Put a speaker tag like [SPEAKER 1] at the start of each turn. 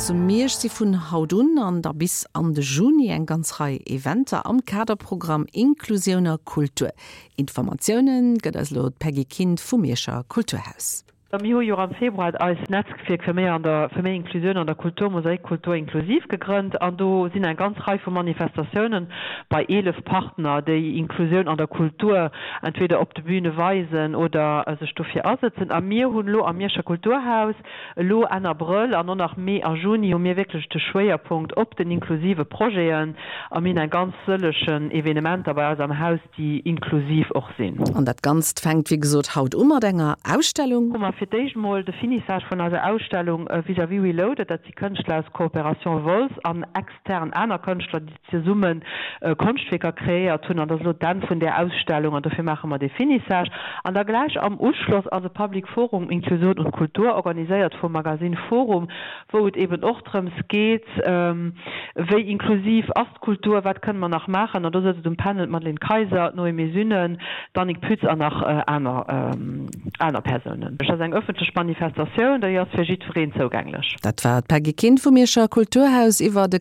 [SPEAKER 1] Zu Miersch si vun haut un an da bis an de Juni eng ganz Rei Eventer am Kaderprogramm Inklusioun a Kultur. Informatioune gëtt eis elo d'Peggy Kind vum Mierscher Kulturhaus.
[SPEAKER 2] Mir hu jo am Februar eist Netzwierk fir méi an der fir méi Inklusioun an der Kultur, Mosaik Kultur Inklusiv gegrënnt an do sinn eng ganz Rei vu Manifestatiounen bei 11 Partner, déi Inklusioun an der Kultur entweder op de Bühne weisen oder sech dofir asëtzen. A mir hunn elo am Mierscher Kulturhaus elo Enn Abrëll an och nach Mee a Juni hu mir wierklech de Schwéierpunkt op den inklusive Projeten a mir hunn eng ganz sëllechen Evenementer bei eis am Haus, déi inklusiv och sinn.
[SPEAKER 1] An dat Ganzt fänkt wéi gesot haut u mat enger Ausstellung.
[SPEAKER 2] Hu mer fir d'éischt mol de Finissage vun eiser Ausstellung Vis-à-vis Reloaded. Dat si Kënschtler aus Coopération Wolz an extern aner Kënschtler, déi zesumme Konschtwierker kreéiert hunn. An dat ass elo d'Enn vun där Ausstellung an dofir maache mer dee Finissage. An da gläich am Uschloss ass e Public Forum Inklusion und Kultur, organiséiert vum Magazine Forum, wou et eben och drëms geet, wéi inklusiv ass d'Kultur, wat kënne mer nach maachen. An do sëtzt um Panel d'Madeleine Kayser, d'Noémie Sünnen, d'Annick Pütz an nach aner aner Persounen. Et ass eng ëffentlech Manifestatioun, déi ass fir jiddwereen zougänglech.
[SPEAKER 1] Dat war d'Peggy Kind vum Mierscher Kulturhaus iwwer de.